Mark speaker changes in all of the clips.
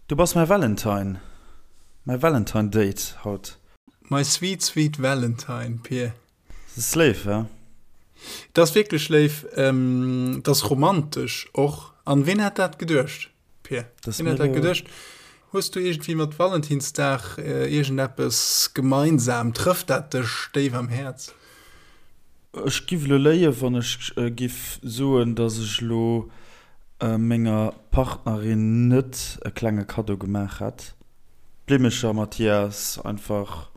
Speaker 1: Du bass mäi Valentine, mäi Valentine Date haut.
Speaker 2: My sweet sweet Valentine, Pir.
Speaker 1: Dat ass léif, he?
Speaker 2: Dat ass wierklech léif, dat ass romantesch och. An ween hätt dat geduecht, Pir? Ween hätt dat geduecht? Hues du iergendwéi mat Valentinsdag iergendeppes gemeinsam? Trëfft dat dech déif am Häerz?
Speaker 1: Ech giff elo léien, wann ech giff soen, dass ech elo menger Partnerin net e klenge Kaddo gemaach hätt. Blimmecher, Mathias, einfach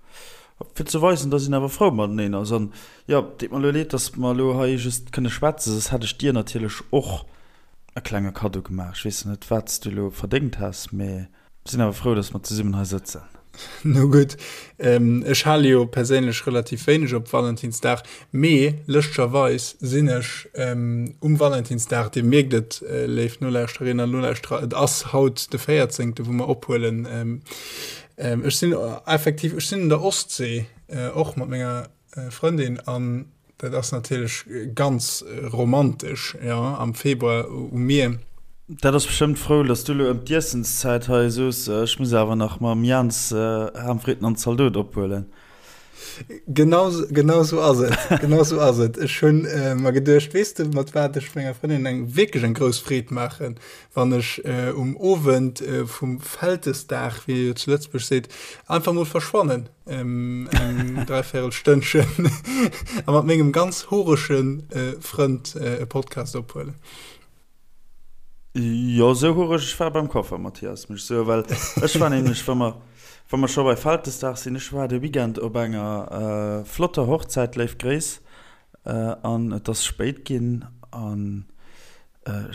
Speaker 1: fir ze weisen, dass een awer frou mateneen ass. An jo, deet mer elo leed, dass mer elo hei just kënne schwätzen, soss hätt ech dir natierlech och e klenge Kaddo gemaach. Ech weess net, wat s du elo verdéngt häss, mee. Sinn awer frou, dass mer zesummen hei sëtzen.
Speaker 2: No gutt, ech hale jo perséinlech relativ wéineg op Valentinsdag, mee lëschtgerweis sinn ech um Valentinsdag, Dir mierkt et, léif Nolauschterinnen an Nolauschterer, et ass haut de 14., wou mer ophuelen, ech sinn effektiv, ech sinn un der Ostsee, och mat menger Frëndin an dat ass natierlech ganz romantesch, jo, am Februar um Mier.
Speaker 1: Dat ass bestëmmt frou, dass du elo ëm d'Iessenszäit hei soos, ech muss awer nach mam Jans Ham, Fritten an Zaldot ophuelen.
Speaker 2: Genau, genau sou ass et, genau sou ass et. Ech hunn mer geduecht, weess de mat wat ech menger Frëndin eng wierklech eng grouss Freed maachen, wann ech um Owend vum Vältesdag, wéi ee jo zu Lëtzebuerg seet, einfach mol verschwannen. Eng dräivierel Stënnchen a mat mengem ganz horesche Frënd e Podcast ophuelen.
Speaker 1: Jo, sou horeg, ech war beim Coiffer, Mathias, muss ech soen, well ech war nämlech, wa mer, wa mer scho bei Vältesdag sinn, ech war de Weekend op enger flotter Hochzäit, léif Gréiss, an et ass spéit ginn an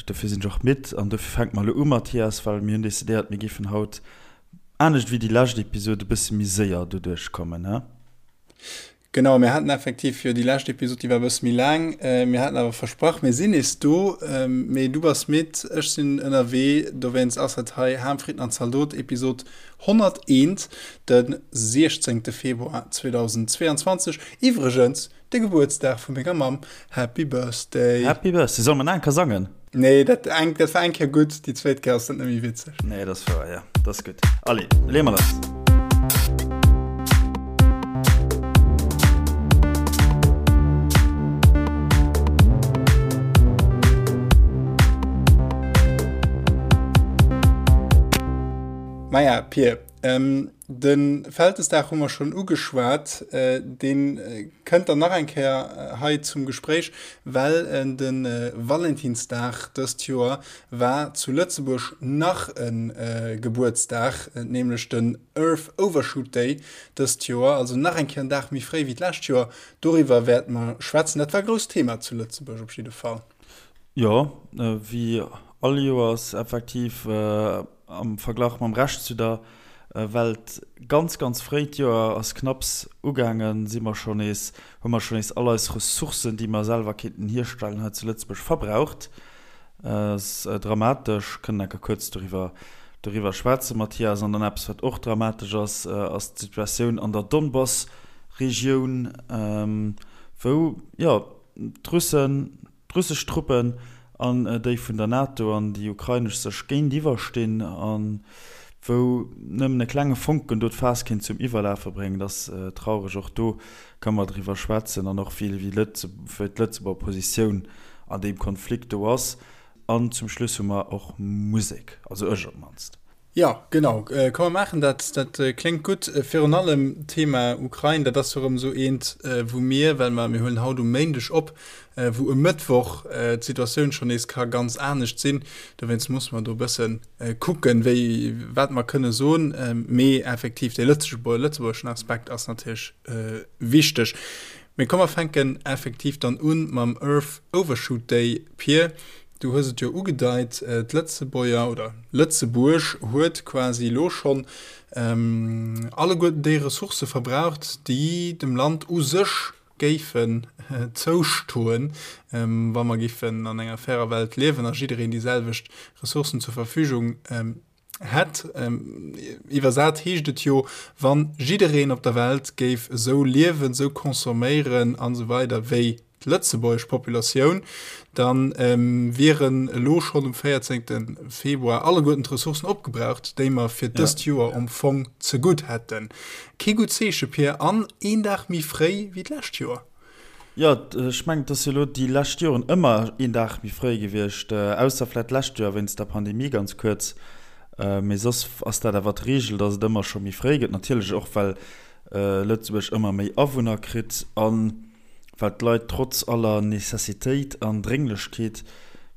Speaker 1: dofir sinn ech och midd an dofir fänke mer elo u, Mathias, well mir hunn decidéiert, mir géifen haut Anescht wéi déi lescht Episod e bësse méi séier doduerch kommen, he?
Speaker 2: Genau, mir haten effektiv jo déi lescht Episod, déi war e bësse méi laang. Mir haten awer versprach, mir sinn nees do. Mee du bass midd, ech sinn ënnerwee, dowéinst ass et hei Ham, Fritten an Zaldot, Episod 101, de 16 Februar 2022. Iwwregens De Gebuertsdag vu menger Mamm. Happy Birthday.
Speaker 1: Happy Birthday. Solle mer nach eng Kéier sangen?
Speaker 2: Nee, dat, eng, dat war eng Kéier gutt, déi zweet Kéier ass dat net méi witzeg.
Speaker 1: Nee, dat ass wouer, ja. Dat ass gutt. Allez, leeë mer lass.
Speaker 2: Maja, Pir, ähm, De Vältesdag hu mer schonn ugeschwat. Dee kënnt dann nach eng Kéier hei zum Gespréich, well de Valentinsdag dëst Joer war zu Lëtzebuerg nach e Gebuertsdag, nämlech den Earth Overshoot Day dëst Joer, also nach eng Kéier en Dag méi fréi wéi d'lescht Joer. Doriwwer wäerte mer schwätzen. Dat war e grousst Thema zu Lëtzebuerg op jidde Fall.
Speaker 1: Jo, wéi all Joers effektiv. Am Verglach mam Rescht zu der Welt ganz, ganz fréi. D'Joer ass knapps ugaangen, si mer scho nees, hu mer scho nees all eis Ressourcen, déi mer selwer kéinten hierstellen hei zu Lëtzebuerg, verbraucht. Ass dramatesch. Kënnen enker kuerz doriwwer, doriwwer schwätzen, Mathias. An dann eppes, wat och dramatesch ass, ass d'Situatioun an der Donbass-Regioun, wou, jo, d'Russen, D'russesch Truppen an déi vun der NATO an déi ukrainesch sech géintiwwer stinn a wou nëmmen e klenge Fonken do d'Faass kéint zum Iwwerlafe bréngen. Dat ass traureg. Och do kënne mer driwwer schwätzen an och wéi d'Lëtzebuerger Positioun an deem Konflikt do ass. An zum Schluss hu mer och Musek, also ech op d'mannst.
Speaker 2: Jo, genau. Komm mer maachen dat. Dat kléngt gutt. Virun allem d'Thema Ukrain, dat ass jo erëm esou eent, wou mir, well mer, mir huelen haut um Méindeg op, wou e Mëttwoch d'Situatioun schonn nees ka ganz anescht sinn. Dowéinst musse mer do e bësse kucken, wéi, wat mer kënne soen. Mee effektiv, dee lëtzebuergeschen Aspekt ass natierlech wichteg. Mee komm mer fänken effektiv dann u mam Earth Overshoot Day, Pir. Du hues et jo ugedeit, d'Lëtzebuerger oder Lëtzebuerg huet quasi elo schonn alleguerten déi Ressourcë verbraucht, déi dem Land u sech géifen zoustoen, wa mer géifen an enger fairer Welt liewen a jiddereen déi selwecht Ressourcen zur Verfügung hätt. Iwwersat heescht et jo, wann jiddereen op der Welt géif esou liewen, esou consomméieren an esou weider wéi. d'lëtzebuergesch Populatioun, da wieren elo schonn um 14. Februar alleguerten d'Ressourcen opgebraucht, déi mer fir dëst Joer am Fong zegutt hätten. Kee gutt Zeeche, Pir, an een Dag méi fréi wéi d'lescht Joer.
Speaker 1: Jo, ech mengen, et ass jo elo déi lescht Joren ëmmer een Dag méi fréi gewiescht, ausser vläicht d'lescht Joer wéinst der Pandemie ganz kuerz. Mee soss ass dat awer d'Reegel, datt et ëmmer scho méi fréi gëtt. Natierlech och, well Lëtzebuerg ëmmer méi Awunner kritt a well d'Leit trotz aller Necessitéit an Drénglechkeet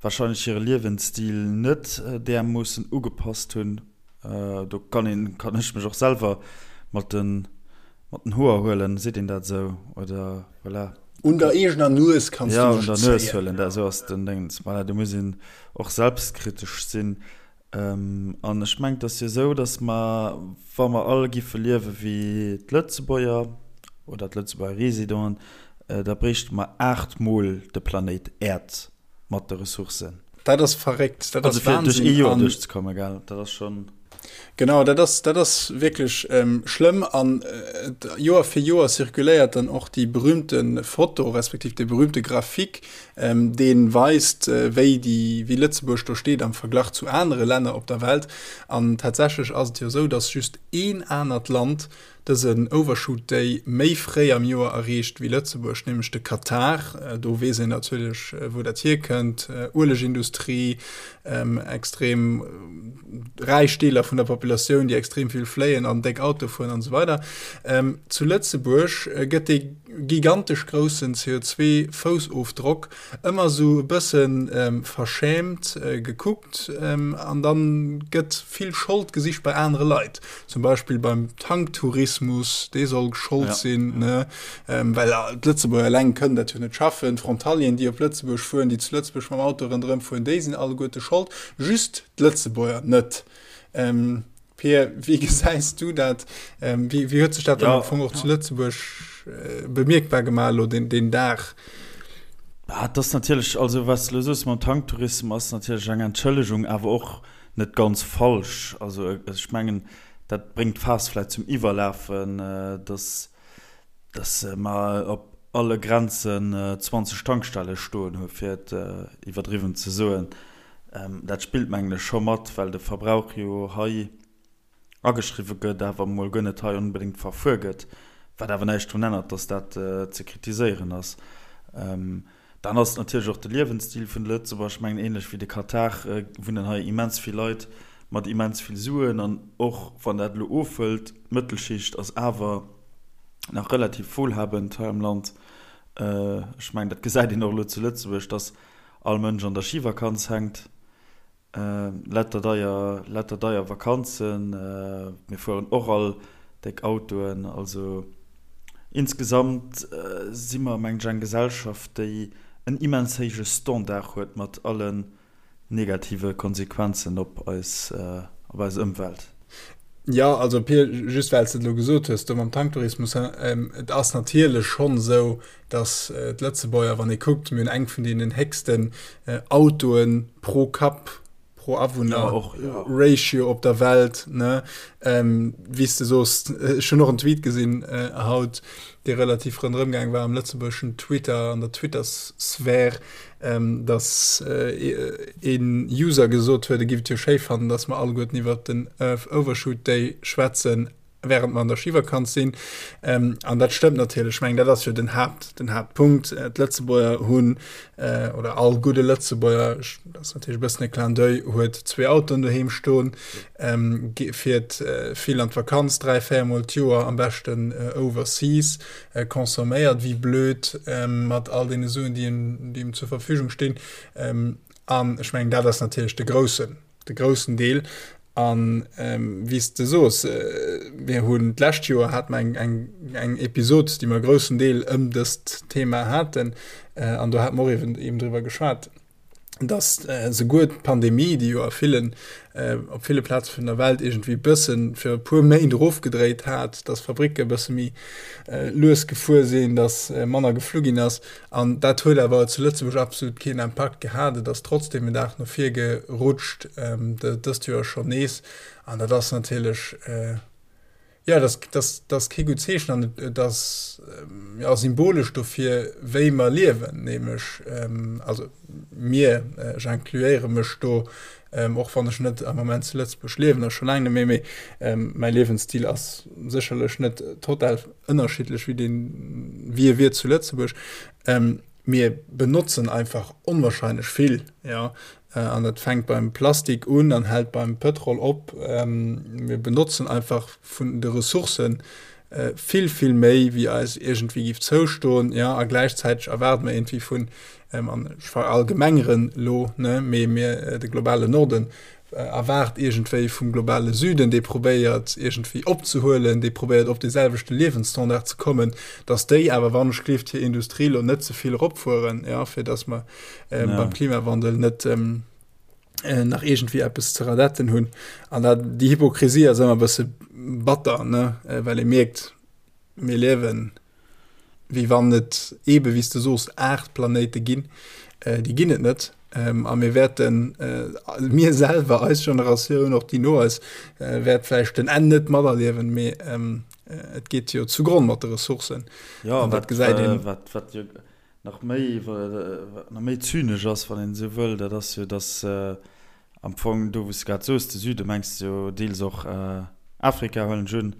Speaker 1: warscheinlech hire Liewensstil net därmoossen ugepasst hunn. Do kann een, kann ech mech och selwer mat den Mat den Hoer huelen, seet een dat esou? Oder voilà.
Speaker 2: Un der eegener Nues kanns du
Speaker 1: mech zéien. Ja, un der Nues huelen, dat esou ass den Déngens. Voilà, do muss een och selbstkritesch sinn. An ech mengen, et ass jo esou, datt mer, wa mer all giffe liewe wéi d'Lëtzebuerger oder d'Lëtzebuerger Residenten, da bréichte mer aachtmol de Planéit Äerd mat de Ressourcen.
Speaker 2: Dat ass verréckt, dat ass
Speaker 1: Wahnsinn. Also fir duerch ee Joer duerchzekommen, gell, dat ass schonn.
Speaker 2: Genau, dat ass, dat ass wierklech ähm, schlëmm an äh, Joer fir Joer zirkuléiert dann och déi berühmte Foto respektiv de berühmte Grafik, ähm, dee weist, äh, wéi déi, wéi Lëtzebuerg do steet am Verglach zu anere Länner op der Welt. An tatsächlech ass et jo esou, dass just een anert Land dësen Overshoot Day méi fréi am Joer erreecht wéi Lëtzebuerg, nämlech de Katar. Do weess een natierlech, wou dat hierkënnt, Uelegindustrie, extrem räich Deeler vun der Populatioun, déi extrem vill fléien an déck Auto fueren an esou weider. Zu Lëtzebuerg gëtt dee gigantesch groussen CO2-Foussofdrock ëmmer esou e bësse verschämt gekuckt an dann gëtt vill Schold gesicht bei anere Leit, zum Beispill beim Tanktourismus, dee soll Schold sinn, ne, well d'Lëtzebuerger eleng kënnen dat jo net schaffen, d'Frontalieren, déi op Lëtzebuerg fueren, déi zu Lëtzebuerg mam Auto ronderëm fueren, déi sinn alleguerte Schold, just d'Lëtzebuerger net. Pir, wéi gesäis du dat? Ähm, wéi, wéi huet sech dat dann ja. am Fong och zu Lëtzebuerg äh, bemierkbar gemaach lo den, den Dag?
Speaker 1: Ah, das natierlech also was du soos mam Tanktourismus ass natierlech eng Entschëllegung, awer och net ganz falsch. Also äh, ech mengen, dat bréngt d'Faass vläit zum Iwwerlafen, äh, dass dass mer op alle Grenzen 20 Tankstelle stoen hu fir et iwwerdriwwen ze soen. Dat spillt mengen ech scho mat, well de Verbrauch jo hei ageschriwwe gëtt, awer emol guer net hei onbedéngt verfuer gëtt, wat awer näischt drun ännert, dass dat ze kritiséieren ass. Dann ass et natierlech och de Liewensstil vun de Lëtzebuerger. Ech mengen, ähnlech wéi de Katar wunnen hei immens vill Leit mat immens vill Suen an och wann dat elo ofhëlt, d'Mëttelschicht ass awer nach relativ wohlhabend hei am Land. Ech mengen, dat gesäit een och elo zu Lëtzebuerg, dass all Mënsch an der Schivakanz hänkt. Letter deier, letter deier Vakanzen. Mir fueren och all déck Autoen. Also insgesamt si mer, mengen ech, eng Gesellschaft, déi en immens héije Standard huet mat allen negative Konsequenzen op eis, op eis Ëmwelt.
Speaker 2: Jo, also Pir, just well s de et elo gesot hues do mam Tanktourismus, et ass natierlech schonn esou, datt d'Lëtzebuerger, wann ee kuckt, mir hunn eng vun deenen héchsten Autoe pro Kapp, pro Awunner Ratio op der Welt, ne? Wéi s de soos, ech hunn och en Tweet gesinn haut, dee relativ ronderëm gaang war am lëtzebuergeschen Twitter, an der Twitter-Sphär, dass een User gesot huet, e giff et jo schéi fannen, dass mer alleguerten iwwert den Earth Overshoot Day schwätzen, während mer an der Schivakanz sinn. An dat stëmmt natierlech. Ech mengen, dat ass jo den Haapt, den Haaptpunkt. D'Lëtzebuerger hunn, oder all gudde Lëtzebuerger, dat ass natierlech e bëssen e Clin d'oeil, huet zwee Autoen doheem stoen, fiert vill an d'Vakanz, 3, 4 Mol d'Joer, am beschten overseas, consomméiert wéi blöd mat all deene Suen, déi em zur Verfügung stinn. An ech mengen, dat ass natierlech de groussen, de groussen Deel. An wéi s de soos, mir hunn d'lescht Joer hate mer eng, eng, eng Episod, déi mer e groussen Deel ëm dëst Thema haten. An do hate mer och eben, eben driwwer geschwat, dass souguer d'Pandemie, déi jo a villen, op ville Plaze vun der Welt iergendwéi e bëssen fir e puer Méint erofgedréit hat, dass Fabricke e bësse méi lues gefuer sinn, dass manner geflu ginn ass. An dat huet awer zu Lëtzebuerg absolut keen Impakt gehat. Et ass trotzdeem en Dag no vir gerutscht, dëst Joer schonn nees. An dat ass natierlech. Jo, dat ass, dat ass kee gutt Zeechen an et ass, jo, symbolesch dofir, wéi mer liewen, nämlech, also mir, ech incluéiere mech do, och wann ech net am Moment zu Lëtzebuerg liewen a scho laang net méi, mee mäi Liewensstil ass sécherlech net total ënnerschiddlech wéi deen, wéi e wier zu Lëtzebuerg. Mir benotzen einfach onwahrscheinlech vill, jo, an dat fänkt beim Plastik un an hält beim Pëtrol op. Mir benotzen einfach vun de Ressourcë vill, vill méi, wéi eis iergendwéi géif zoustoen, jo, a gläichzäiteg erwaarde mer iergendwéi vun, an ech verallgemengeren elo, ne, mee mir, de globalen Norden, erwaart iergendwéi vum globale Süden, dee probéiert iergendwéi opzehuelen, dee probéiert op dee selwechte Liewensstandard ze kommen, datt déi awer wann ech gleeft hir Industrie lo net ze vill eropfueren, ja, fir datt mer äh, ja. beim Klimawandel net ähm, äh, nach iergendwéi eppes ze radetten hunn. An dat déi Hypokrisie ass ëmmer e bësse batter, ne, äh, well ee mierkt, mir liewen wéi wann et eebe wéi s de soos 8 Planéite ginn, déi ginn et net. A mir wäerten, mir selwer, eis Generatioun, och déi no eis, wäert vläicht den Enn net materliewen, mee et geet jo zugronn mat de Ressourcen.
Speaker 1: Jo, an dat gesäit een. Wat wat jo nach méi wat nach méi zynesch ass, wann een esou wëll, dat ass jo, datt Am Fong do wou s de grad soos, de Süde mengs de jo deels och Afrika, huelen ech un.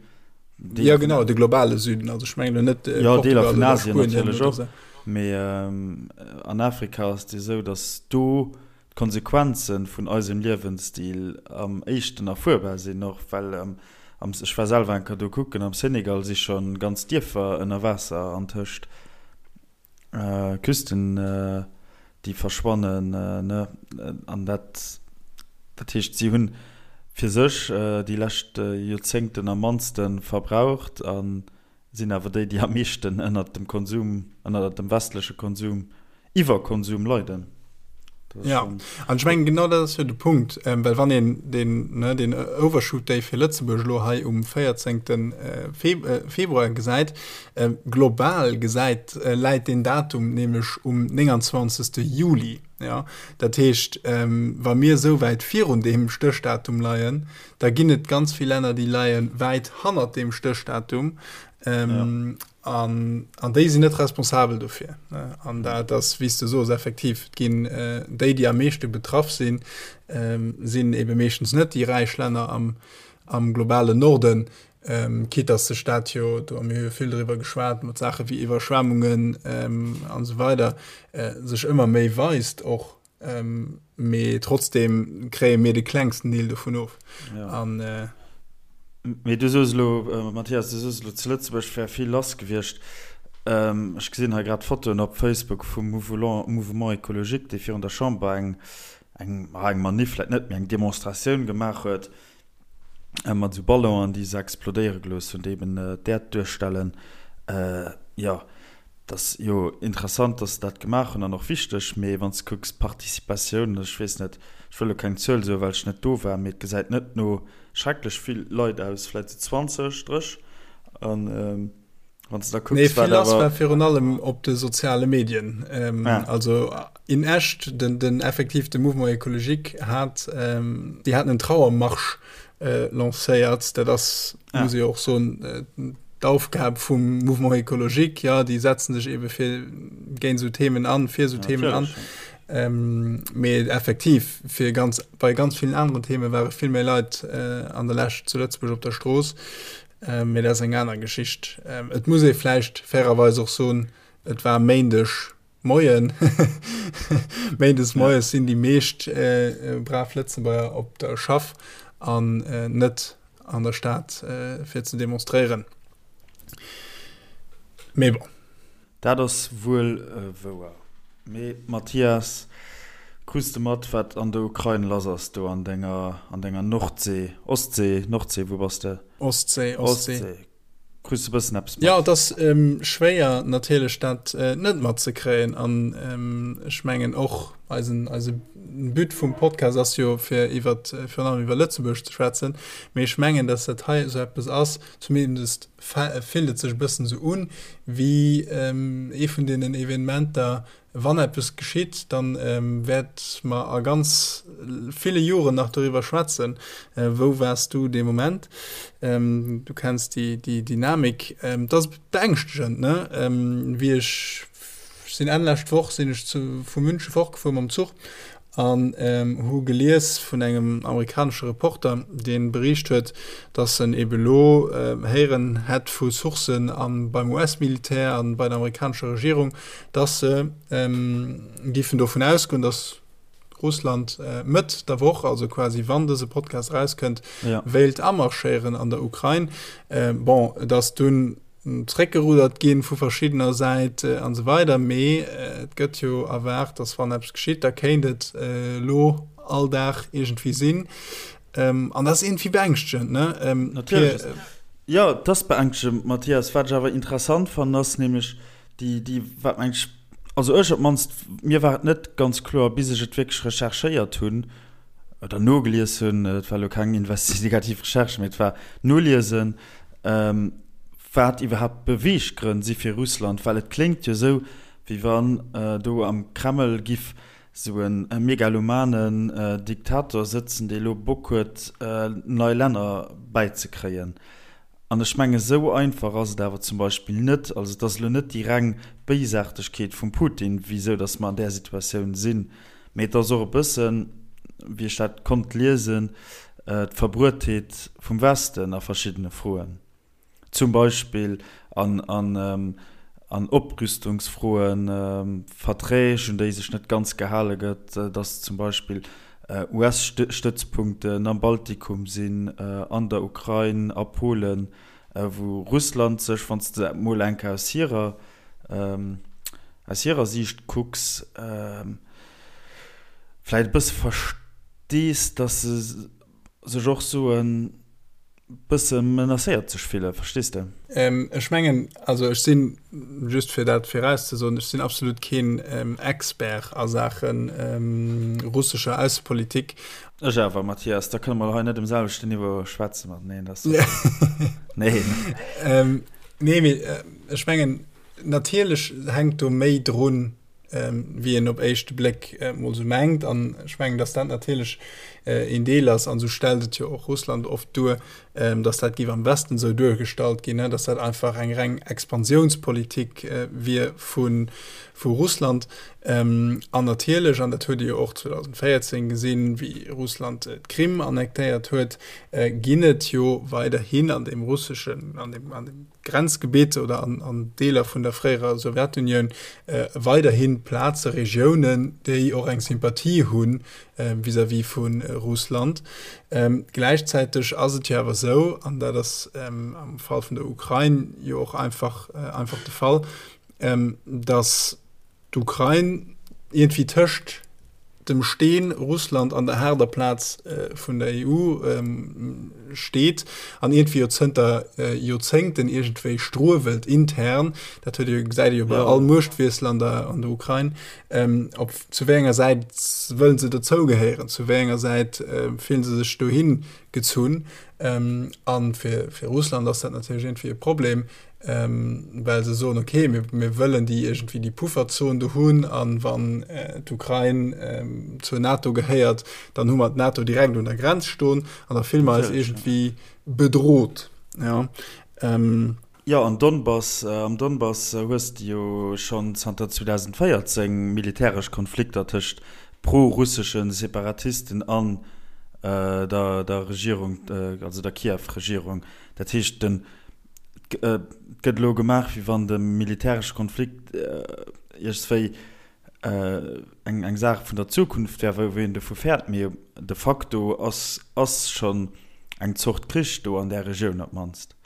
Speaker 2: Deeler Ja genau, de globale Süden, also ech mengen elo net
Speaker 1: Jo, Deeler Portugal vun oder Asien Spuenien natierlech oder och, sou. mee an Afrika ass et jo esou, datt do d'Konsequenze vun eisem Liewensstil am éischten erfuerbar sinn, och well am, ech war selwer eng Kéier do kucken, am Senegal si scho ganz Dierfer ënner Waasser antëscht. Küsten déi verschwannen, ne, an dat, dat heescht si hunn fir sech déi lescht Joerzéngten am mannste verbraucht a sinn awer déi, déi am meeschten ënnert dem Konsum, ënnert dem westleche Konsum, Iwwerkonsum leiden.
Speaker 2: Ja, an ech mengen genau dat ass jo de Punkt, ähm, well wann een den, ne, den Overshoot Day fir Lëtzebuerg elo hei um 14. Äh, Feb äh, Februar gesäit, äh, global gesäit, äh, läit den Datum nämlech um 29. Juli. Ja, dat heescht, ähm, wa mir esou wäit virun deem Stéchdatum leien, da ginn et ganz vill Länner, déi leie wäit hannert deem Stéchdatum. Ähm, ja. An, an déi sinn net responsabel dofir. An dat ass, wéi s de soos, effektiv, et ginn déi, déi am meeschte betraff sinn, sinn ebe meeschtens net déi räich Länner am, am globalen Norden, quitte dass sech dat jo, do hu mir jo vill driwwer geschwat, mat Saache wéi Iwwerschwemmungen an esou weider, sech ëmmer méi weist och. Mee trotzdem kréie mir de klengsten Deel dovun of.
Speaker 1: Ja. An, äh, Mee du soos elo, Mathias, du soos elo, zu Lëtzebuerg wär vill lass gewiescht. Ech gesinn hei grad Fotoen op Facebook vum Mouvement Ecologique, dee virun der Chamber eng, eng, eng Manif vläicht net, mee eng Demonstratioun gemaach huet. mat esou Ballonen, déi se explodéiere gelooss hunn, déi eben d'Äerd duerstellen. Jo, et ass jo interessant, datt se dat gemaach hunn an och wichteg, mee wann s de kucks d'Participatioun, ech weess net, ech wëll elo keng Zuel soen, well ech net do war, mee et gesäit net no schrecklech vill Leit aus, vläicht esou 20, 30 an.
Speaker 2: Wann du da kucks, nee, vill lass war virun allem op de soziale Medien. Ähm, ah. Also in echt den, den effektiv de Mouvement écologique hat ähm, déi haten en Trauermarsch äh, lancéiert. Dat ass ah. muss ich och so äh, d'Aufgab vum Mouvement écologique ja déi setzen sech ebe fir géint so Themen an, fir so ja, Themen an. Ähm, mee effektiv fir ganz bei ganz vielen anderen Themen ware vill méi Leit äh, an der Läscht zu Lëtzebuerg op der Strooss. Mee dat ass eng aner Geschicht. Et muss ee vläicht fairerweis och soen, et war Méindeg Moien. Méindes moies sinn déi meescht brav Lëtzebuerger op der Schaff an net an der Stad fir ze demonstréieren. Mee bon.
Speaker 1: Dat ass wuel wouer. Mee Mathias, krus de mat wat an der Ukrain lass ass do an denger an denger Nordsee, Ostsee, Nordsee, wou bass de?
Speaker 2: Ostsee, Ostsee.
Speaker 1: Ostsee. Krus de bëssen eppes
Speaker 2: mat? Jo, et ass schwéier natierlech dat net matzekréien an ech mengen och eisen eise But vum Podcast ass jo fir iwwert virun allem iwwer Lëtzebuerg ze schwätzen, mee ech mengen, datt dat hei esou eppes ass, zumindest fillt et sech e bëssen esou un, wéi ee vun deenen Evenementer, Wann eppes geschitt, da wäerte mer a ganz ville Joren nach doriwwer schwätzen, Wou waars du dee Moment? Du kenns déi Dynamik. Et ass beängschtegend, ne? Wéi ech sinn Enn lescht Woch sinn ech vu Münche fortgefuer mam Zuch an hu gelies vun engem amerikanesche Reporter, dee bericht huet, datt en ebe lo héieren hätt vu Sourcen a beim US-Militär a bei der amerikanescher Regierung, datt se géifen dovun ausgoen, datt Russland Mëtt der Woch, also quasi wann dëse Podcast erauskënnt, wéilt amarschéieren an der Ukrain. Bon, et ass dunn zréckgeruddert ginn vu verschiddener Säit an esou weider, mee et gëtt jo erwaart, datt wann eppes geschitt, da kéint et elo all Dag iergendwéi sinn. An dat ass iergendwéi beängschtegend, ne?
Speaker 1: Natierlech. Jo, et ass beängschtegend, Mathias. Wat ech awer interessant fannen, ass nämlech déi, déi, wat meng ech, also ech op d'mannst, mir war et net ganz kloer, bis ech et wierklech recherchéiert hunn oder nogelies hunn, et war elo keng investigativ Recherche, mee et war noliesen, wat iwwerhaapt d'Beweeggrënn si fir Russland, well et kléngt jo esou, wéi wann do am Kreml giff esou e megalomanen Diktator sëtzen, dee elo Bock huet, nei Länner bäizekréien. An ech mengen, esou einfach ass et awer zum Beispill net. Also et ass elo net déi reng Béisaartegkeet vum Putin, wisou datt mer an där Situatioun sinn, mee et ass och e bëssen, wéi ech dat konnt liesen, d'Verbruetheet vum Westen a verschiddene Froen, zum Beispill an Oprüstungsfroen, Verträg, un déi sech net ganz gehale gëtt, datt zum Beispill US-Stëtzpunkten am Baltikum sinn, an der Ukrain, a Polen, wou Russland sech, wann s de dat mol eng Kéier aus hirer, aus hirer Siicht kucks, vläicht e bësse verstees, datt se sech och soen, bësse menacéiert sech fillen, verstees de?
Speaker 2: Ech mengen, also ech sinn, just fir dat virauszesoen, ech sinn absolut keen Expert a Saache russescher Aussepolitik.
Speaker 1: Ech awer, Mathias, da kënne mer hei net um selwechten Niveau schwätze mateneen, dat ass
Speaker 2: nee. Nee, mee ech mengen, natierlech hänkt do méi drun, wéi een op éischte Bléck mol sou mengt. An ech mengen, datt dat natierlech een Deel ass, an esou stellt et jo och Russland oft duer, datt dat géif am Westen esou duergestallt ginn, datt dat einfach eng reng Expansiounspolitik wier vu Russland. An natierlech, an dat huet ee jo och 2014 gesinn, wéi Russland d'Krim annektéiert huet, ginn et jo weiderhin an deem russeschen, an deem, an deem Grenzgebitt oder an Deeler vun der fréierer Sowjetunioun weiderhi Plaze, Regiounen, déi och eng Sympathie hu vis-à-vis vu Russland. Gläichzäiteg ass et jo awer esou, an dat ass am Fall vun der Ukrain jo och einfach einfach de Fall, datt d'Ukrain iergendwéi tëscht dem Steen Russland an der haarder Plaz vun der EU steet an iergendwéi jo zënter Joerzéngten iergendwéi struewelt intern, dat huet ee gesäit ee jo bei all Muechtwiessel an der an der Ukrain, op zu wéi enger Säit wëllen se dozougehéieren, zu wéi enger Säit fillen se sech dohi gezunn. A fir fir Russland ass dat natierlech iergendwéi e Problem, well se soen, okay, mir, mir wëllen déi iergendwéi déi Pufferzon do hunn an wann d'Ukrain zur NATO gehéiert, dann hu mer d'NATO direkt un der Grenz stoen an da fille mer eis iergendwéi bedroht. Ja.
Speaker 1: Jo, an Donbass, am Donbass hues de jo schonn zanter 2014 militäresch Konflikter tëscht pro-russesche Separatisten an der, der Regierung, also der Kiew-Regierung. Dat heescht, den Et gëtt elo gemaach, wéi wann de militäresche Konflikt iergendswéi eng eng Saach vun der Zukunft wär, wou een dovu fäert. Mee de facto ass ass schonn eng Zort Krich do an där Regioun op d'mannst.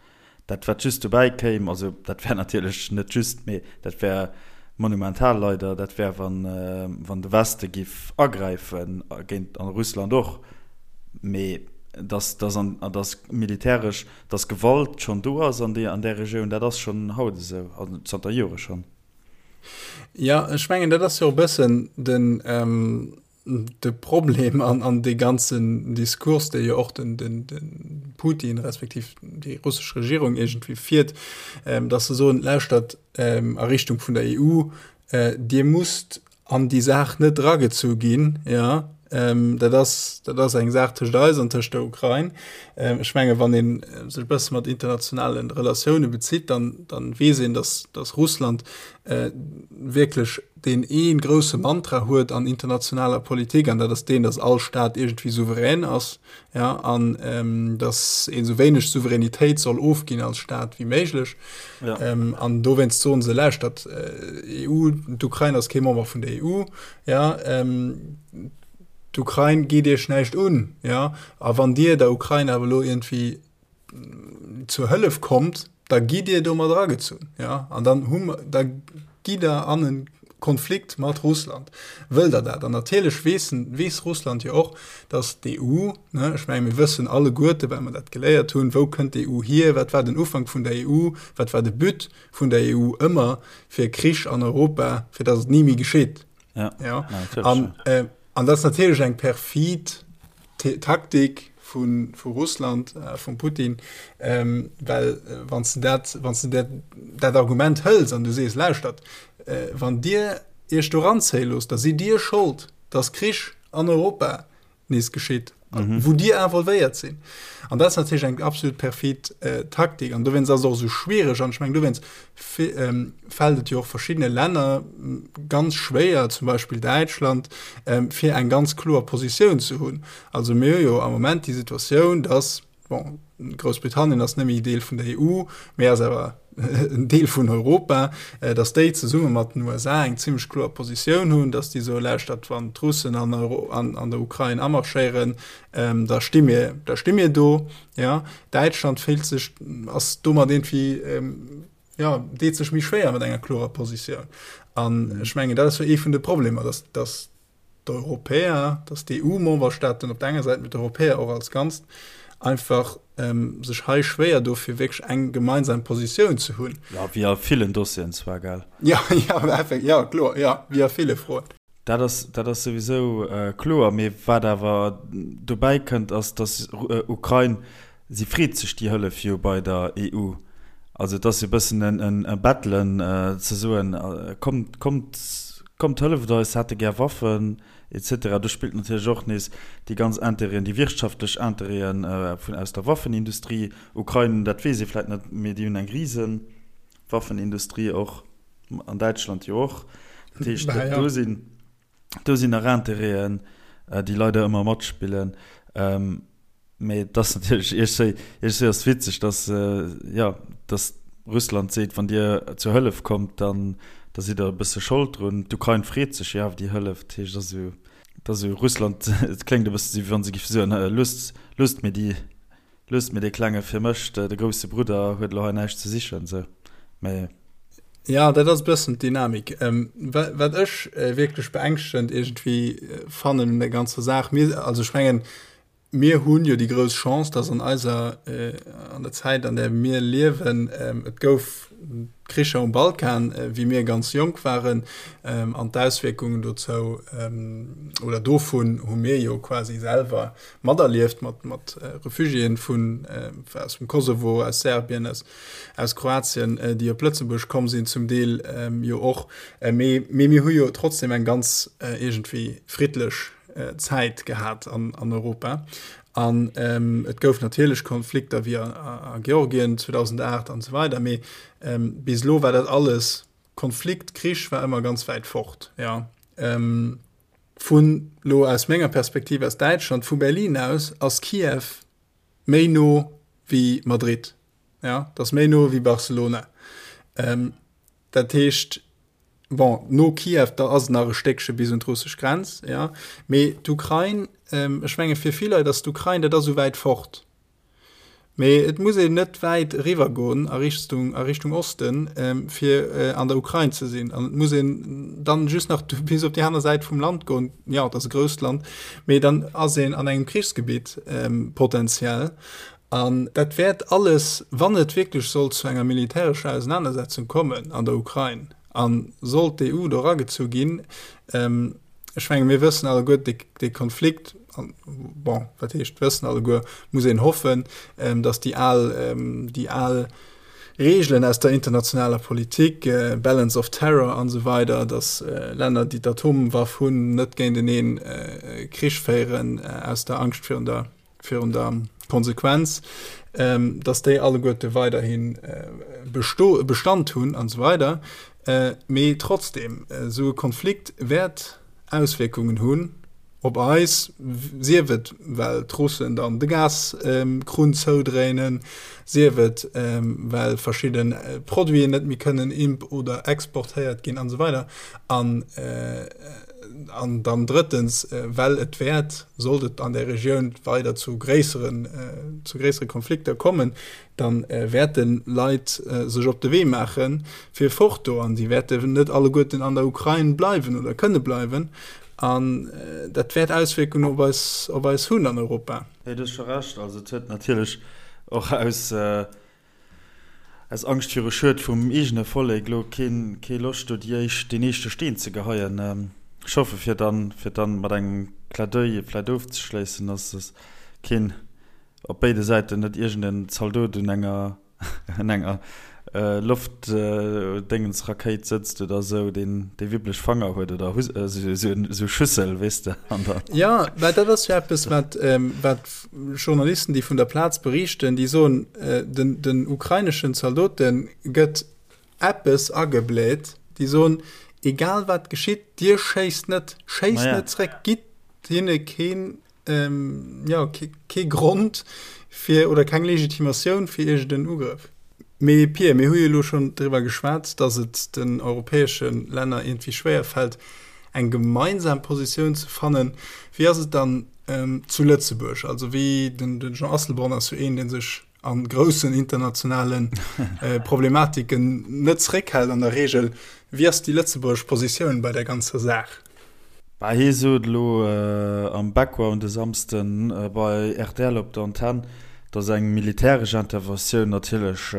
Speaker 1: Dat wat just dobäi kéim, also dat wär natierlech net just, mee dat wär monumental leider, dat wär wann wann de Weste giff agräifen géint an Russland och, mee dass dass an dass militäresch Dass Gewalt schonn do ass an där Regioun, dat ass schonn haut esou, also zanter Jore schonn.
Speaker 2: Jo, ech mengen, dat ass jo e bëssen den, de Problem an, an dee ganzen Diskurs, dee jo och den, den, de Putin respektiv déi russesch Regierung iergendwéi fiert, dass se soen, lauschtert, a Richtung vun der EU. Dir musst an déi Saach net eragezu ginn, jo. Dat ass, dat ass eng Saach tëscht eis an tëscht der Ukrain. Ech menge wann ee sech e bësse mat internationale Relatioune bezitt, dann, dann weess een, datt, datt Russland wierklech deen ee grousse Mantra huet an internationaler Politik, an dat ass deen, datt all Staat iergendwéi souverän ass. ja, an ähm, dass een sou wéineg Souveränitéit soll ofginn als Staat wéi méiglech. Ja. Ähm, an dowéinst soen se, lauschtert, äh, EU, d'Ukrain ass kee Member vun der EU, ja, ähm, d'Ukrain geet iech näischt un, ja, a wann dir der Ukrain awer elo iergendwéi zur Hëllef kommt, da gitt Dir do mat eragezunn, ja, an dann hu mer, da gitt Der an e Konflikt mat Russland. Wëllt Der dat? An natierlech weess, weess Russland jo och, datt d'EU, ne, ech menge mir wëssen alleguerte, well mer dat geléiert hunn, wou kënnt d'EU hier, wat war den Ufank vun der EU, wat war de But vun der EU ëmmer, fir Krich an Europa, fir datt et ni méi geschitt.
Speaker 1: Ja,
Speaker 2: ja. An, äh, an dat ass natierlech eng perfid Taktik vu, vu Russland, äh, vum Putin, ähm, well äh, wann du dat, wann du dat, dat Argument hëls an du sees, lauschtert, äh, wann Dir Iech do ranzéie loosst, da sidd Dir Schold, dass Krich an Europa nees geschitt, mhm. wou Dir involvéiert sinn. An dat ass natierlech eng absolut perfid äh, Taktik. An dowéinst ass et och esou schwiereg. An ech meng, dowéinst ähm, fält et jo och verschiddene Länner ganz schwéier, zum Beispill Däitschland, ähm, fir eng ganz kloer Positioun ze hunn. Also mir hu jo am Moment déi Situatioun, dass Bon, Groussbritannien ass net méi Deel vun der EU, mee ass awer en Deel vun Europa, datt déi zesumme mat den USA eng zimmlech kloer Positioun hunn, datt déi soe lauschtert, wann d'Russen an an der Ukrain amarschéieren, da sti mir, da sti mir do. Ja, Däitschland fillt sech, ass domat iergendwéi, jo, deet sech méi schwéier mat enger klorer Positioun. An ech mengen, dat ass jo ee vun de Problemer, datt, datt d'Europäer, dass d'EU-Memberstaaten op der enger Säit, mee d'Europäer och als Ganzt, einfach sech hei schwéier do fir wierklech eng gemeinsam Positioun ze hunn.
Speaker 1: Jo, wéi a villen Dossieren zwar, gell?
Speaker 2: Jo, jo, effekt, jo, kloer, jo, wéi a ville Froen.
Speaker 1: Dat ass, dat ass souwisou kloer. Mee wat awer dobäi kënnt, ass, dass Ukrain Si freet sech déi Hëllef jo bei der EU. Also et ass jo e bëssen e Bettelen, ze soen, kommt, kommt, kommt hëlleft eis, hätte gär Waffen et cetera. Do spillt natierlech och nees déi ganz Intérêten, déi wirtschaftlech Intérêten vun aus der Waffenindustrie. Ukrain, dat weess ee vläicht net, mee déi hunn eng rise Waffenindustrie och, an Däitschland jo och. Dat heescht, do sinn, do sinn nach Intérêten, déi leider ëmmer matspillen. Mee et ass natierlech iergendwéi, iergendwéi ass et witzeg, dass, jo, dass Russland seet, wann Dir zur Hëllef kommt, dann da sidd Der e bësse Schold drun. D'Ukrain freet sech jo awer déi Hëllef. Dat heescht, et ass esou, et ass esou Russland, et kléngt e bësse esou, wéi wa se géife soen, loosst, loosst mir déi, loosst mir dee Klenge fir mech, de grousse Brudder huet elo hei näischt ze sichen, esou. Mee.
Speaker 2: Ja, dat ass e bëssen d'Dynamik. Wat ech wierklech beängschtegend iergendwéi fannen un der ganzer Saach, mir, also ech mengen, Mir hunn jo déi grouss Chance, dass an eiser, an der Zäit, an där mir liewen, et gouf Kricher um Balkan, wéi mir ganz jonk waren, an d'Auswierkungen dozou oder dovun hu mir jo quasi selwer materlieft, mat, mat Refugiéen vun, aus dem Kosovo, aus Serbien, aus, aus Kroatien, déi op Lëtzebuerg komm sinn, zum Deel jo och. Mee, mee mir hu jo trotzdem eng ganz iergendwéi friddlech Zäit gehat an, an Europa. An ähm, et gouf natierlech Konflikter wéi a, a Georgien 2008 an esou weider, mee ähm, bis elo war dat alles Konflikt, Krich war ëmmer ganz wäit fort. Ja. Ähm, vun lo aus menger Perspektiv aus Däitschland, vu Berlin aus, ass Kiew méi no wéi Madrid. Ja, dat ass méi no wéi Barcelona. Ähm, dat heescht, Bon, no Kiew, da ass et nach e Stéckche bis un d'russesch Grenz, jo. Mee d'Ukrain, ech menge fir vill Leit ass d'Ukrain, dat ass esou wäit fort. Mee et muss een net wäit eriwwergoen a Richtung, a Richtung Osten, fir an der Ukrain ze sinn. An et muss een dann just nach bis op déi aner Säit vum Land goen, jo, et ass e grousst Land, mee dann ass een an engem Krichsgebitt potenziell. An dat wäert alles, wann et wierklech sollt zu enger militärescher Ausenanersetzung kommen an der Ukrain a sollt d'EU do eragezu ginn, ech menge mir wëssen alleguer, dee Konflikt, bon, wat heescht wëssen alleguer, muss een hoffen, datt déi al, déi al Reegelen aus der internationaler Politik, Balance of Terror an esou weider, datt Länner, déi d'Atomwaff hunn, net géinteneen Krich féieren aus der Angscht virun der, virun der Konsequenz, datt déi alleguerte weiderhi besto, Bestand hunn an esou weider. Mee trotzdem, esou e Konflikt wäert Auswierkungen hunn. Op eis, sief et well d'Russen dann de Gaskrunn zoudréinen, sief et well verschidde Produiten net méi kënnen imp oder exportéiert ginn an esou weider. An an dann drëttens, well et wäert, sollt et an där Regioun weider zu gréisseren, zu gréissere Konflikter kommen, da wäerte Leit sech op de Wee maache fir fort do an déi wäerten net alleguerten an der Ukrain bleiwen oder kënne bleiwen. An dat wäert Auswierkungen op eis, op eis hunn an Europa.
Speaker 1: Nee, du hues scho Recht. Also et huet natierlech och aus, aus Angscht viru Schued vum eegene Vollek elo keen, kee Loscht do déi éischt, deen éischte Steen ze geheien. Ech hoffe fir dann, fir dann mat engem Clin d'oeil vläicht ofzeschléissen, dass es keen op béide Säiten net iergend en Zaldot un enger, un enger Loftdéngensrakéit sëtzt oder esou, deen déi wibblech Fanger huet oder esou Schüssel, weess de, an
Speaker 2: der. Jo, mä dat ass jo eppes, wat, wat Journalisten, déi vun der Plaz beriichten, déi soen, den, den ukraineschen Zaldote gëtt eppes agebläht, déi soen, egal wat geschitt, dir schéisst net, schéisst net zréck, gitt hinne keen jo, kee Grond fir oder keng Legitimatioun fir iergend en Ugrëff. Mee Pia, mir hu jo elo schonn driwwer geschwat, datt et den europäesche Länner iergendwéi schwéier fält, eng gemeinsam Positioun ze fannen. Wéi ass et dann zu Lëtzebuerg? Also wéi, den Jean Asselborn ass jo een, dee sech a groussen internationale Problematiken net zeréckhält an der Reegel. Wéi ass déi lëtzebuergesch Positioun bei där ganzer Saach?
Speaker 1: Bah, hie sot elo am Background e Samsde bei rtl op der Antenn, datt eng militäresch Interventioun natierlech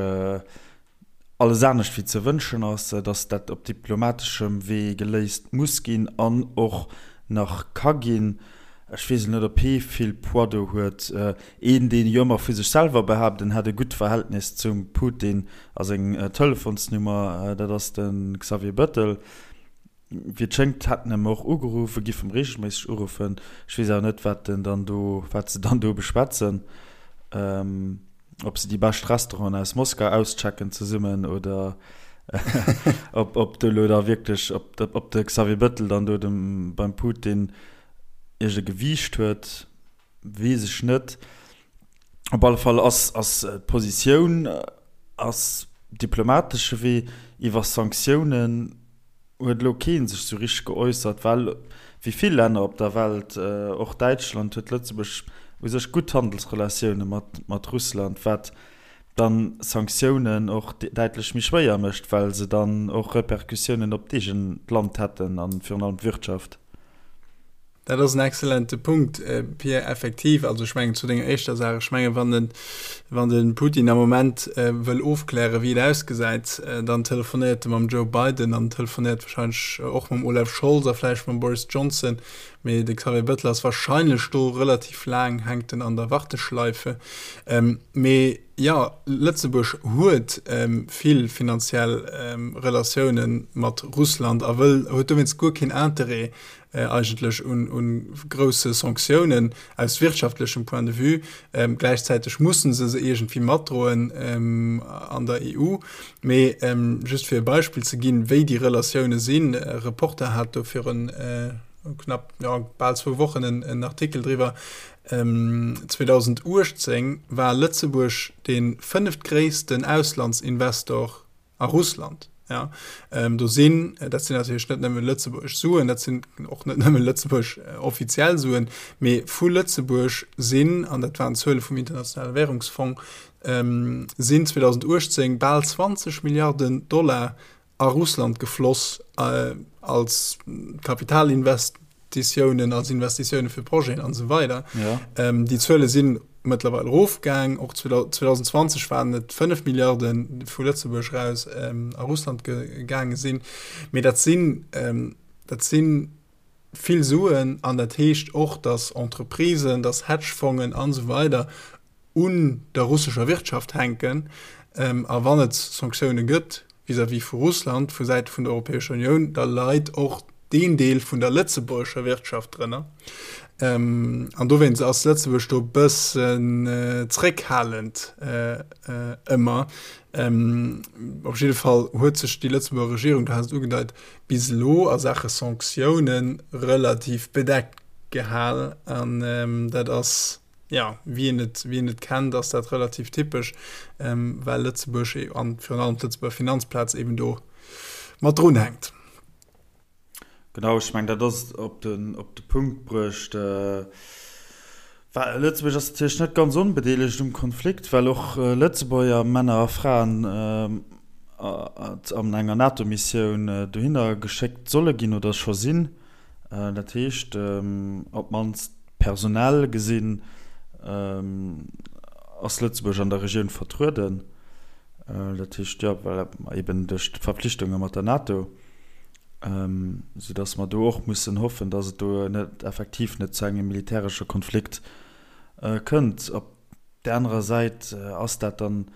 Speaker 1: alles anescht wéi ze wënschen ass, datt dat op diplomateschem Wee geléist muss ginn an och nach ka ginn. Ech weess elo net, ob hie vill Poids do huet. Een, deen jo ëmmer vu sech selwer behaapt, en hätt e gutt Verhältnis zum Putin a seng Telefonsnummer, dat ass de Xavier Bettel. Wéi et schéngt, hätt en em och ugeruff, e giff em reegelméisseg uruffen. Ech weess awer net, wat en dann do, wat se dann do beschwätzen. Ob se déi bescht Restauranten aus Moskau auschecken zesummen oder ob, ob do elo da wierklech, ob, ob de Xavier Bettel dann do dem, beim Putin iergend e Gewiicht huet, weess ech net. Op alle Fall ass, ass d'Positioun ass diplomatesche Wee iwwer Sanktiounen. huet elo kee sech sou richteg geäussert, well wéi vill Länner op der Welt, och Däitschland, huet Lëtzebuerg u sech gutt Handelsrelatioune mat Russland, wat dann Sanktiounen och däitlech méi schwéier mécht, well se dann och Repercussiounen op d'eegent Land hätten a virun allem d'Wirtschaft.
Speaker 2: Dat ass en excellente Punkt, Pierre. Effektiv, also ech mengen zu denger éischter Saach, ech mengen, wann den, wann de Putin am Moment wëll ofklären, wéi et ausgesäit, dann telefonéiert e mam Joe Biden an telefonéiert wahrscheinlech och mam Olaf Scholz a vläicht mam Boris Johnson. Mee de Xavier Bettel ass wahrscheinlech do relativ laang, hänkt en an der Warteschleife. Mee jo, Lëtzebuerg huet vill finanziell Relatioune mat Russland a wëll, huet dowéinst guer keen Interêt, eigentlech un grousse Sanktiounen aus wirtschaftlechem Point de vue. Gläichzäiteg mussen se se iergendwéi matdroen an der EU. Mee just fir e Beispill ze ginn, wéi déi Relatioune sinn, Reporter hat do virun knapp, jo, bal zwou Wochen en Artikel driwwer, 2018 war Lëtzebuerg dee fënneftgréissten Auslandsinvestor A Russland, ja. Do sinn, dat sinn natierlech net nëmme lëtzebuergesch Suen, dat sinn och net nëmme lëtzebuergesch offiziell Suen, mee vu Lëtzebuerg sinn, an dat waren d'Zuele vum Internationale Währungsfong, sinn 2018 bal 20 Milliarden Dollar a Russland gefloss als Kapitalinvest Investitiounen, als Investitioune fir Projeten an esou weider. Ja. Ähm, déi Zuele sinn mëttlerweil erofgaang. Och 2020 waren et 5 Milliarden déi vu Lëtzebuerg raus ähm, a Russland gegaange sinn. Mee dat sinn, ähm, dat sinn vill Suen an dat heescht och, datt Entreprisen, datt Hedgefongen an esou weider. un der russescher Wirtschaft hänken. A wann et Sanktioune gëtt vis-à-vis vu Russland vu Säite vun der Europäescher Unioun, da leit och deen Deel vun der lëtzebuergescher Wirtschaft drënner. An dowéinst ass Lëtzebuerg do e bëssen zréckhalend ëmmer. Op jidde Fall huet sech déi Lëtzebuerger Regierung, du has et ugedeit, bis elo a Saache Sanktioune relativ bedeckt gehal. An dat ass, jo, wéi een et, wéi een et kennt, ass dat relativ typesch, well Lëtzebuerg an virun allem d'Lëtzebuerger Finanzplaz eben do mat drunhänkt.
Speaker 1: Genau, ech mengen, dat ass op den, op de Punkt bruecht. Well Lëtzebuerg ass natierlech net ganz onbedeelegt um Konflikt, well och Lëtzebuerger Männer a Fraen an enger NATO-Missioun dohinner geschéckt solle ginn oder scho sinn. Dat heescht, op d'mannst personell gesinn ass Lëtzebuerg an der Regioun vertrueden. Dat heescht, jo, well eben duerch d'Verpflichtunge mat der NATO. Soudass mer do och mussen hoffen, dass et do net effektiv net zu engem militäresche Konflikt kënnt. Op där anerer Säit ass dat dann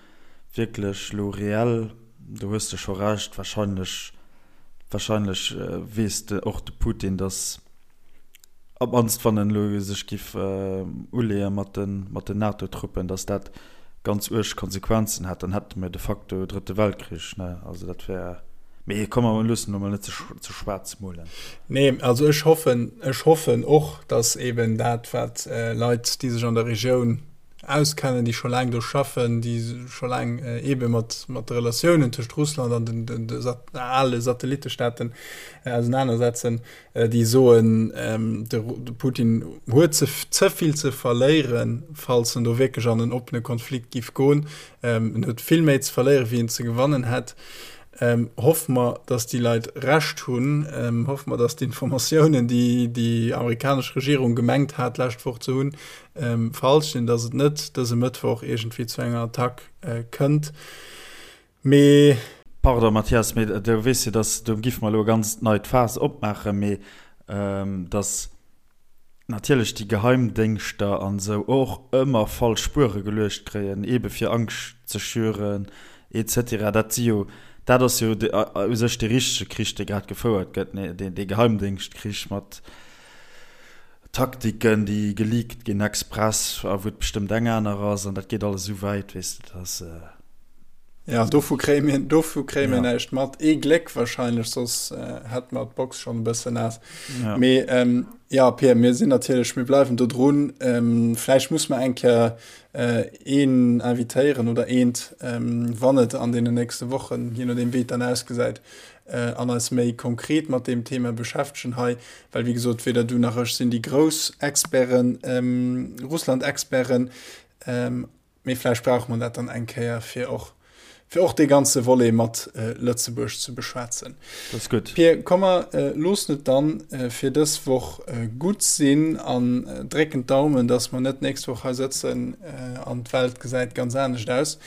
Speaker 1: wierklech elo reell, do hues de scho Recht, wahrscheinlech, wahrscheinlech weess och de Putin, dass, Op d'mannst wann en elo sech giff uleeë mat den NATO-Truppen, datt dat ganz uerg Konsequenzen hätt, dann hätte mir de facto e drëtte Weltkrich, ne? Also dat wär, mee komm mer loossen elo mol net ze schwaarz molen.
Speaker 2: Nee, also ech hoffen, ech hoffen och, datt eben dat wat Leit, déi sech an der Regioun auskennen, déi scho laang do schaffen, déi scho laang eebe mat mat de Relatiounen tëscht Russland an den de ale Satellittestaaten ausenanersetzen, déi soen, de Putin huet ze ze vill ze verléieren, falls en do wierklech an en oppene Konflikt giff goen. En huet vill méi ze verléieren, wéi en ze gewannen hätt. Hoffe mer, datt déi Leit Recht hunn. Hoffe mer, datt d'Informatiounen, déi déi amerikanesch Regierung gemengt hat d'lescht Woch ze hunn, falsch sinn, datt et net dëse Mëttwoch iergendwéi zu enger Attack kënnt.
Speaker 1: Mee. Pardon, Mathias, mee du weess jo, dass, do giffe mer elo e ganz neit Faass opmaachen, mee dass natierlech déi Geheimdéngschter an esou och ëmmer falsch Spuere geluecht kréien, eebe fir Angscht ze schüren et cetera. Dat si jo, dat ass jo u sech dee richtege Krich, dee grad gefouert gëtt, dee Geheimdéngschtkrich mat Taktiken, déi geleakt ginn express a wou et bestëmmt eng aner ass an dat geet alles esou wäit, weess de, dass.
Speaker 2: Ja, dovu kréie mir, dovu kréie mir ja. näischt mat. Ee Gléck wahrscheinlech, soss äh, hätt mer d'Box schon e bëssen naass. Ja. Mee ähm, ja, Pierre, mir sinn natierlech, mir bleiwen do drun. Ähm, vläicht muss mer eng Kéier äh, een invitéieren oder eent, ähm, wann et an deenen nächste Wochen, je nodeem wéi et dann ausgesäit, äh, an eis méi konkret mat deem Thema beschäftegen hei, well wéi gesot, weder du nach ech sinn déi grouss Experten, ähm, Russland-Experten. Ähm, Mee vläicht brauche mer dat dann eng Kéier, fir och, fir och dee ganze Volet mat Lëtzebuerg ze beschwätzen.
Speaker 1: Dat ass gutt.
Speaker 2: Pir, komm mer loossen et dann fir dës Woch gutt sinn an drécken d'Daumen, dass mer net d'nächst Woch hei sëtzen an d'Welt gesäit ganz anescht aus.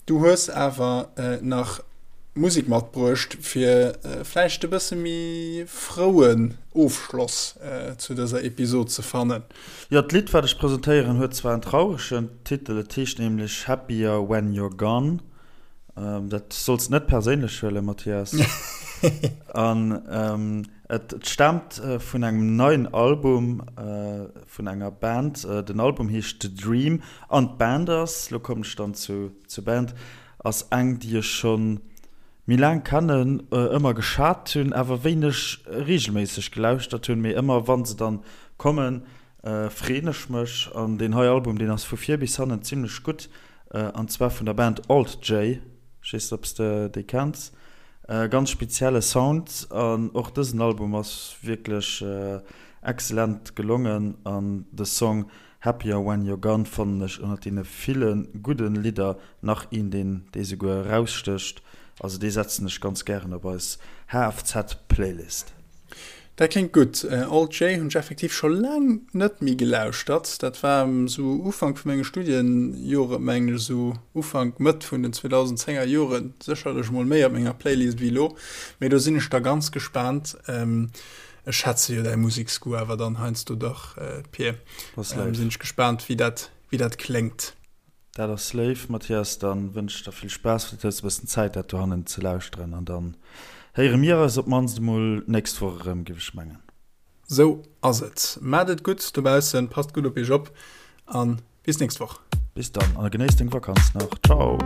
Speaker 2: Du hues awer nach Musek matbruecht, fir vläicht e bësse méi frouen Ofschloss zu dëser Episod ze fannen.
Speaker 1: Jo, d'Lidd wat ech presentéieren huet zwar en trauregen Titel, et heescht nämlech Happier When You're Gone. Dat solls de net perséinlech huelen, Mathias. An et staamt vun engem neien Album vun enger Band. Den Album heescht The Dream an d'Band ass, lo kommen ech dann zu zur Band, ass eng déi ech schonn méi laang kennen, ëmmer geschat hunn, awer wéineg regelméisseg gelauschtert hunn, mee ëmmer wann se dann kommen, freeën ech mech. An deen hei Album, deen ass vu vir bis hannen zimlech gutt, an zwar vun der Band Alt J, ech weess net ob s de déi kenns, ganz spezielle Sound an och dësen Album ass wierklech excellent gelongen an de Song Happier When You're Gone fannen ech ënnert deene ville gudden Lidder nach een deen dee souguer erausstécht, also dee setzen ech ganz gären op eis HFZ Playlist.
Speaker 2: Dat kléngt gutt. Alt J hunn ech effektiv scho laang net méi gelauschtert. Dat war esou Ufank vu menge Studienjoren, mengen ech, esou Ufank, Mëtt vun den 2010er Joren, sécherlech mol méi op menger Playlist wéi elo. Mee do sinn ech da ganz gespaant. Ech schätze jo däi Museksgoût awer dann heiansdo dach, Pir. Sinn ech gespaant, wéi dat, wéi dat kléngt.
Speaker 1: Dat ass léif, Mathias. Dann wënsch ech der vill Spaass. Vläicht hues de e bëssen Zäit, dat dohannen ze lauschteren. An dann héiere mir eis op d'mannst emol d'nächst Woch erëm, géif ech mengen.
Speaker 2: Sou ass et. Maacht et gutt dobaussen, passt gutt op iech op a bis nächst Woch.
Speaker 1: Bis dann a genéiss deng Vakanz nach. Ciao.